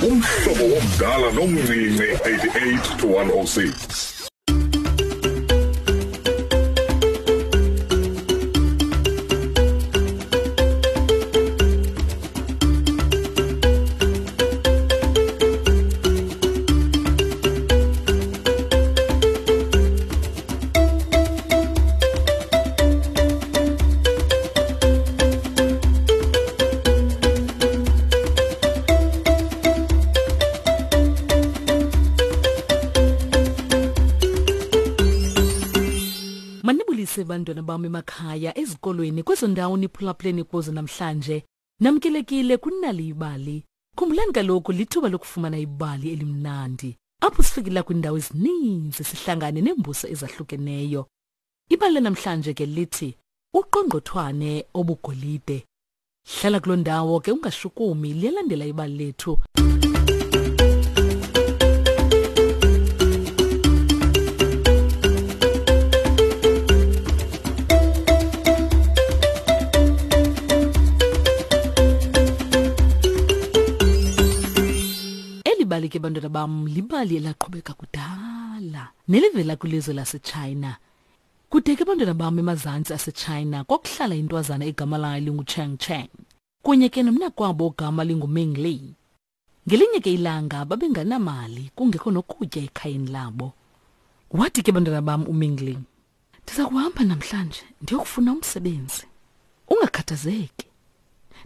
Umhlobo womdala nomncinci 88 to 106. Manibulise bantwana bam emakhaya, ezikolweni, kwezo ndawo niphulaphuleni kuzo namhlanje. Namkelekile kunali ibali. Khumbulani kaloku lithuba lokufumana ibali elimnandi. Apho sifikela kwiindawo ezininzi sihlangane neembuso ezahlukeneyo. Ibali lanamhlanje ke lithi uqongqothwane obugolide. Hlala kuloo ndawo ke ungashukumi, liyalandela ibali lethu. Eli bali ke bantwana bam libali elaqhubeka kudala nelivela kwilizwe laseChina. Kude ke bantwana bam emazantsi aseChina kwakuhlala intwazana egama layo linguCheng Cheng kunye ke nomnakwabo ogama linguMing Li. Ngelinye ke ilanga babenganamali kungekho nokutya ekhayeni labo. Wathi ke bantwana bam uMing Li, Ndiza kuhamba namhlanje ndiyokufuna umsebenzi. Ungakhathazeki.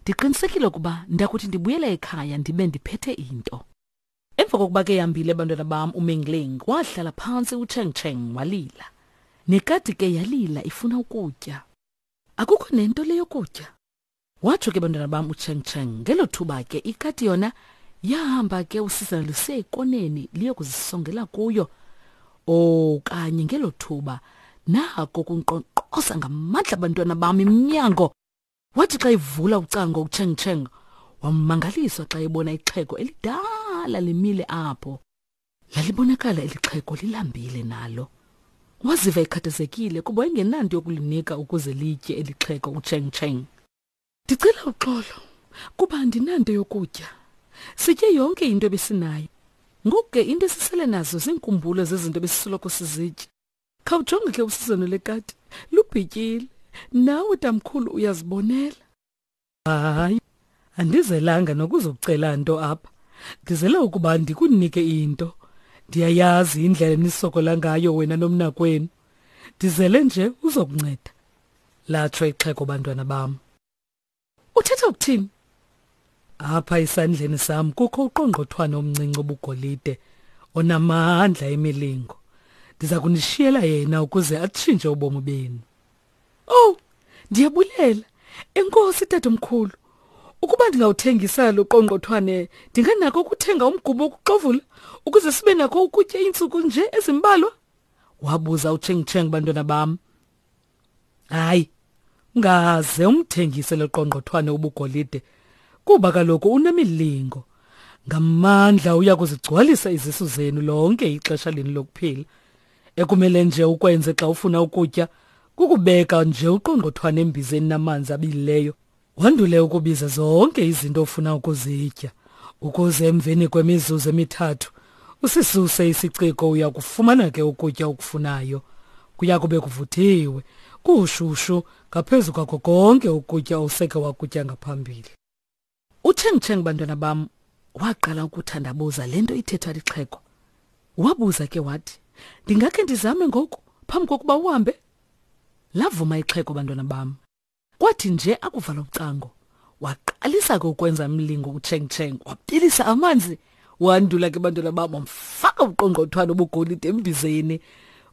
Ndiqinisekile ukuba ndakuthi ndibuyele ekhaya ndibe ndiphethe into. Emva kokuba ke yambile bantwana bam uMingling wahlala phantsi uCheng Cheng walila. Nekati ke yalila ifuna ukutya. Akukho nento le yokutya. Watsho ke bantwana bam uCheng Cheng ngelo thuba ke ikati yona yahamba ke usizana lusiya ekoneni liyokuzisongela kuyo. Okanye ngelo thuba nako kunkqonkqoza ngamandla bantwana bam iminyango. Wathi xa ivula ucango uCheng Cheng wamangaliswa xa ebona ixhego elidala limile apho. Lalibonakala eli xhego lilambile nalo. Waziva ekhathazekile kuba wayengenanto yokulinika ukuze litye eli xhego uCheng Cheng. Ndicela uxolo kuba andinanto yokutya. Sitye yonke into ebesinayo. Ngoku ke into esisele nazo ziinkumbulo zezinto ebesisoloko sizitya. Khawujonge ke usizana lekati lubhityile. Nawe tamkhulu uyazibonela. Hayi, andizelanga nokuzokucela nto apha. Ndizele ukuba ndikunike into. Ndiyayazi indlela enisokola ngayo wena nomnakwenu. Ndizele nje uzokunceda. Latsho ixhego bantwana bam. Uthetha ukuthini? Apha esandleni sam kukho uqongqothwane omncinci obugolide onamandla emilingo. Ndiza kunishiyela yena ukuze atshintshe ubomi benu. Oh, ndiyabulela. Enkosi tatomkhulu. Ukuba ndingawuthengisa lo qongqothwane, ndinganako ukuthenga umgubo wokuxovula ukuze sibe nako ukutya iintsuku nje ezimbalwa? Wabuza uCheng Cheng bantwana bam. Hayi, ungaze umthengise lo qongqothwane ubugolide kuba kaloku unemilingo. Ngamandla uya kuzigcwalisa izisu zenu lonke ixesha lenu lokuphila. Ekumele nje ukwenze xa ufuna ukutya kukubeka nje uqongqothwane embizeni namanzi abilileyo, wandule ukubiza zonke izinto ofuna ukuzitya, ukuze emveni kwemizuzu emithathu usisuse isiciko uya kufumana ke ukutya okufunayo. Kuya kube kuvuthiwe, kushushu ngaphezu kwako konke ukutya oseke wakutya ngaphambili. UCheng Cheng bantwana bam waqala ukuthandabuza le nto ithethwa lixhego. Wabuza ke wathi, ndingakhe ndizame ngoku phambi kokuba uhambe? Lavuma ixhego bantwana bam. Kwathi nje akuvala ucango, waqalisa ke ukwenza umlingo uCheng Cheng, wabilisa amanzi, wandula ke bantwana bam wamfaka uqongqothwane obugolide embizeni.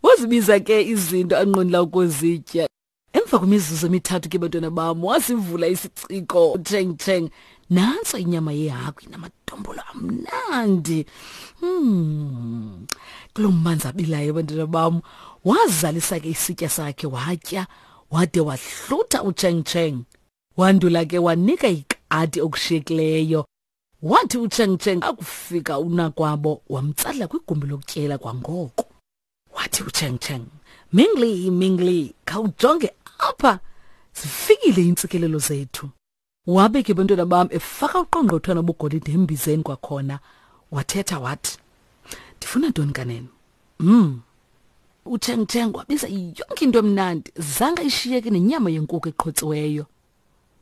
Wazibiza ke izinto anqwenela ukuzitya. Emva kwemizuzu emithathu ke bantwana bam wasivula isiciko Cheng Cheng. Nantso inyama yehagu inamadombolo amnandi. Kuloo manzi abilayo bantwana bam wazalisa ke isitya sakhe watya wade wahlutha uCheng Cheng. Wandula ke wanika ikati okushiyekileyo. Wathi uCheng Cheng akufika unakwabo wamtsala kwigumbi lokutyela kwangoko. Wathi uCheng Cheng, Mingli, Mingli, khawujonge apha, zifikile iintsikelelo zethu. Wabe ke bantwana bam efaka uqongqothwana obugolide embizeni kwakhona. Wathetha wathi, Ndifuna ntoni kanene? UCheng Cheng wabiza yonke into emnandi, zange ishiyeke nenyama yenkukhu eqhotsiweyo.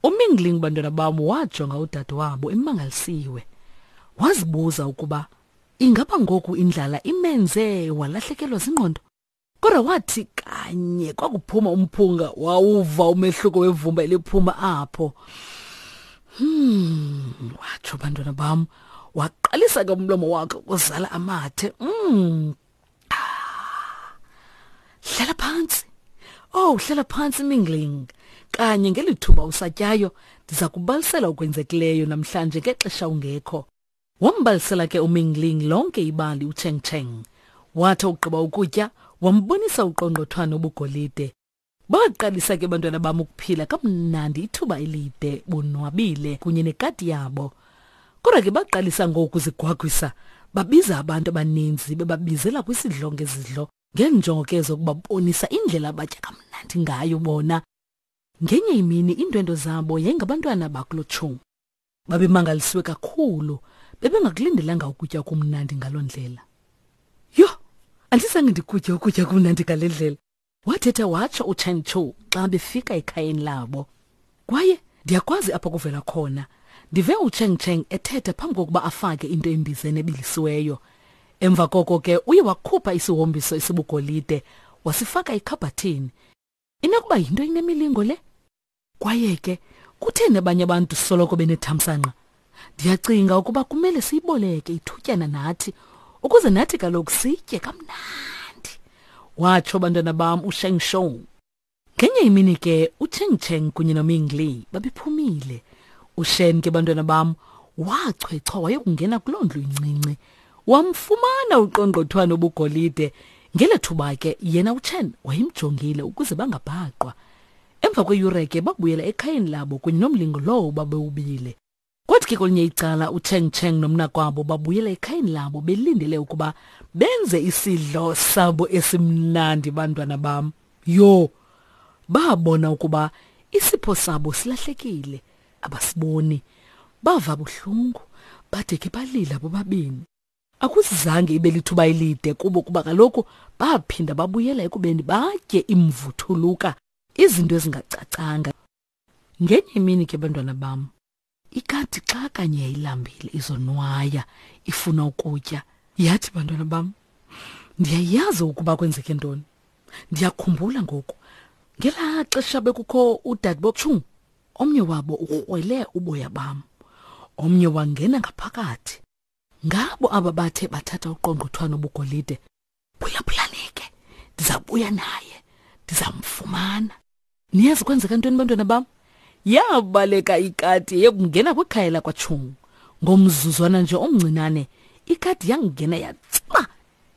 UMingling bantwana bam wajonga udade wabo emangalisiwe. Wazibuza ukuba ingaba ngoku indlala imenze walahlekelwa zingqondo. Kodwa wathi kanye kwakuphuma umphunga wawuva umehluko wevumba eliphuma apho. Watsho bantwana bam, waqalisa ke umlomo wakhe ukuzala amathe. Hlala phantsi. Oh, hlala phantsi Mingling. Kanye ngelithuba usatyayo, ndiza kubalisela okwenzekileyo namhlanje ngexesha ungekho. Wambalisela ke uMingling lonke ibali uCheng Cheng. Wathi ugqiba ukutya, wambonisa uqongqothwane obugolide. Baqalisa ke bantwana bam ukuphila kamnandi ithuba elide bonwabile kunye nekati yabo. Kodwa ke baqalisa ngoku zigwagwisa, babiza abantu abaninzi bebabizela kwisidlo ngezidlo ngeenjongo ke zokubabonisa indlela abatya kamnandi ngayo bona. Ngenye imini iindwendwe zabo yayingabantwana bakuloTshungu. Babemangalisiwe kakhulu, bebengakulindelanga ukutya okumnandi ngaloo ndlela. Yho, andizange ndikutye ukutya okumnandi ngale ndlela, wathetha watsho uChen Chu xa befika ekhayeni labo. Kwaye ndiyakwazi apho kuvela khona. Ndive uCheng Cheng ethetha phambi kokuba afake into embizeni ebilisiweyo. Emva koko ke uye wakhupha isihombiso esibugolide wasifaka ekhabhathini. Inokuba yinto inemilingo le? Kwaye ke kutheni abanye abantu soloko benethamsanqa? Ndiyacinga ukuba kumele siyiboleke ithutyana nathi ukuze nathi kaloku sitye kamnandi, watsho bantwana bam uSheng Shou. Ngenye imini ke uCheng Cheng kunye noMing Li babephumile. UShen ke bantwana bam wachwechwa wayokungena kuloo ndlu incinci. Wamfumana uqongqothwane obugolide. Ngelo thuba ke yena uChen wayemjongile ukuze bangabhaqwa. Emva kweyure ke babuyela ekhayeni labo kunye nomlingo lowo babewubile. Kwathi ke kwelinye icala uCheng Cheng nomnakwabo babuyela ekhayeni labo belindele ukuba benze isidlo sabo esimnandi bantwana bam. Yho, babona ukuba isipho sabo silahlekile, abasiboni. Bava buhlungu, bade ke balila bobabini. Akuzange ibe lithuba elide kubo kuba kaloku baphinda babuyela ekubeni batye imvuthuluka, izinto ezingacacanga. Ngenye imini ke bantwana bam, ikati xa kanye yayilambile izonwaya ifuna ukutya, yathi bantwana bam, ndiyayazi ukuba kwenzeke ntoni. Ndiyakhumbula ngoku ngelaa xesha bekukho udadebochung, omnye wabo ukrwele uboya bam, omnye wangena ngaphakathi. Ngabo aba bathe bathatha uqongqothwane obugolide. Phulaphulani ke, ndizabuya naye, ndizamfumana. Niyazi kwenzeka ntoni bantwana bam? Yabaleka ikati yekungena kwikhaya lakwaTshungu. Ngomzuzwana nje omncinane, ikati yangena yatsiba,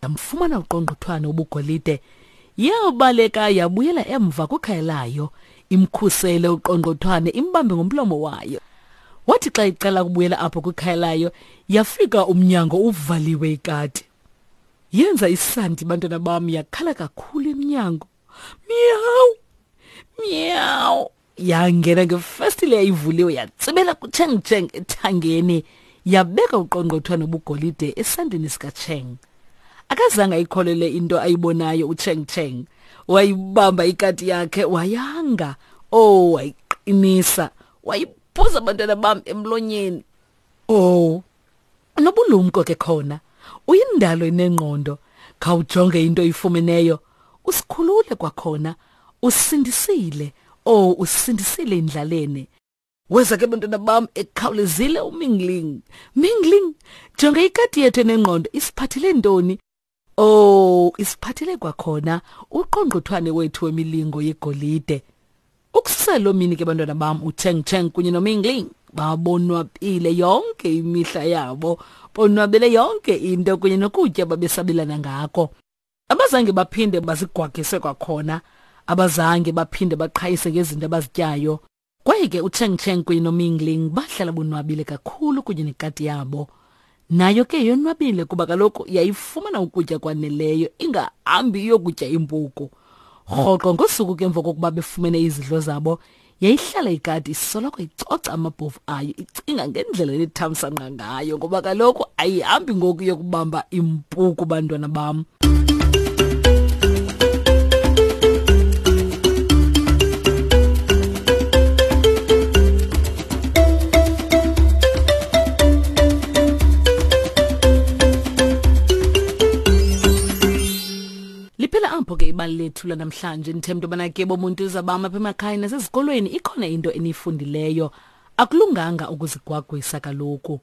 yamfumana uqongqothwane obugolide. Yabaleka yabuyela emva kwikhaya layo, imkhusele uqongqothwane imbambe ngomlomo wayo. Wathi xa iqala ukubuyela apho kwikhaya layo, yafika umnyango uvaliwe ikati. Yenza isandi bantwana bam, yakhala kakhulu emnyango. Miyawu! Miyawu! Yangena ngefestile yayivuliwe yatsibela kuCheng Cheng ethangeni, yabeka uqongqothwane obugolide esandleni sikaCheng. Akazange ayikholele into ayibonayo uCheng Cheng. Wayibamba ikati yakhe wayanga. Oh, wayiqinisa. Wayiphuza abantwana bam emlonyeni. Oh, unobulumko ke khona. Uyindalo enengqondo. Khawujonge into oyifumeneyo. Usikhulule kwakhona. Usindisile. Oh, usindisile endlaleni. Weza ke bantwana bam ekhawulezile uMingling. Mingling, jonga ikati yethu enengqondo isiphathele ntoni? Oh, isiphathele kwakhona uqongqothwane wethu wemilingo yegolide. Ukususela loo mini ke bantwana bam uCheng Cheng kunye noMingling babonwabile yonke imihla yabo, bonwabele yonke into kunye nokutya babesabelana ngako. Abazange baphinde bazigwagise kwakhona, abazange baphinde baqhayise ngezinto abazityayo. Kwaye ke uCheng Cheng kunye noMingling bahlala bonwabile kakhulu kunye nekati yabo. Nayo ke yonwabile kuba kaloku yayifumana ukutya kwaneleyo ingahambi iyokutya impuku. Rhoqo ngosuku ke emva kokuba befumene izidlo zabo, Yayihlala ikati isoloko icoca amabhovu ayo icinga ngendlela enethamsanqa ngayo ngoba kaloku ayihambi ngoku yokubamba impuku bantwana bam. Liphela apho ke ibali lethu lanamhlanje. Ndithemba into yobana ke bomuntu uzabam apha emakhaya nasezikolweni ikhona into eniyifundileyo. Akulunganga ukuzigwagwisa kaloku.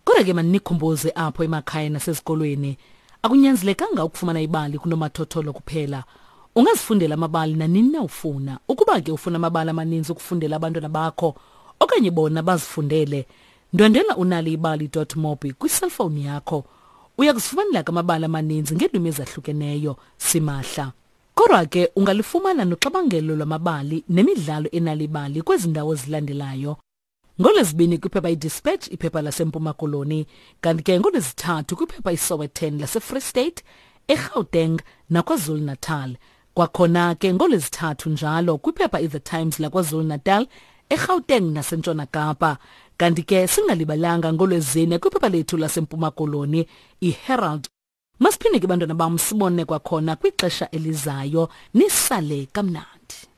Kodwa ke maninikhumbuze apho emakhaya nasezikolweni, akunyanzelekanga ukufumana ibali kunomathotholo kuphela. Ungazifundela amabali nanini na ufuna. Ukuba ke ufuna amabali amaninzi ukufundela abantwana bakho okanye bona bazifundele, ndwendwela unaliyibali.mobi kwiselfowuni yakho. Uya kuzifumanela ke amabali amaninzi ngeelwimi ezahlukeneyo simahla. Kodwa ke ungalifumana noxabangelo lwamabali nemidlalo enalibali kwezi ndawo zilandelayo. NgoLwezibini kwiphepha iDispatch, iphepha laseMpuma Koloni, kanti ke ngoLwezithathu kwiphepha iSowetan laseFree State, eGauteng naKwaZulu-Natal. Kwakhona ke ngoLwezithathu njalo kwiphepha iThe Times laKwaZulu-Natal, eGauteng naseNtshona Kapa. Kanti ke singalibalanga ngoLwezine kwiphepha lethu laseMpuma Koloni, iHerald. Masiphinde ke bantwana bam sibone kwakhona kwixesha elizayo, nisale kamnandi.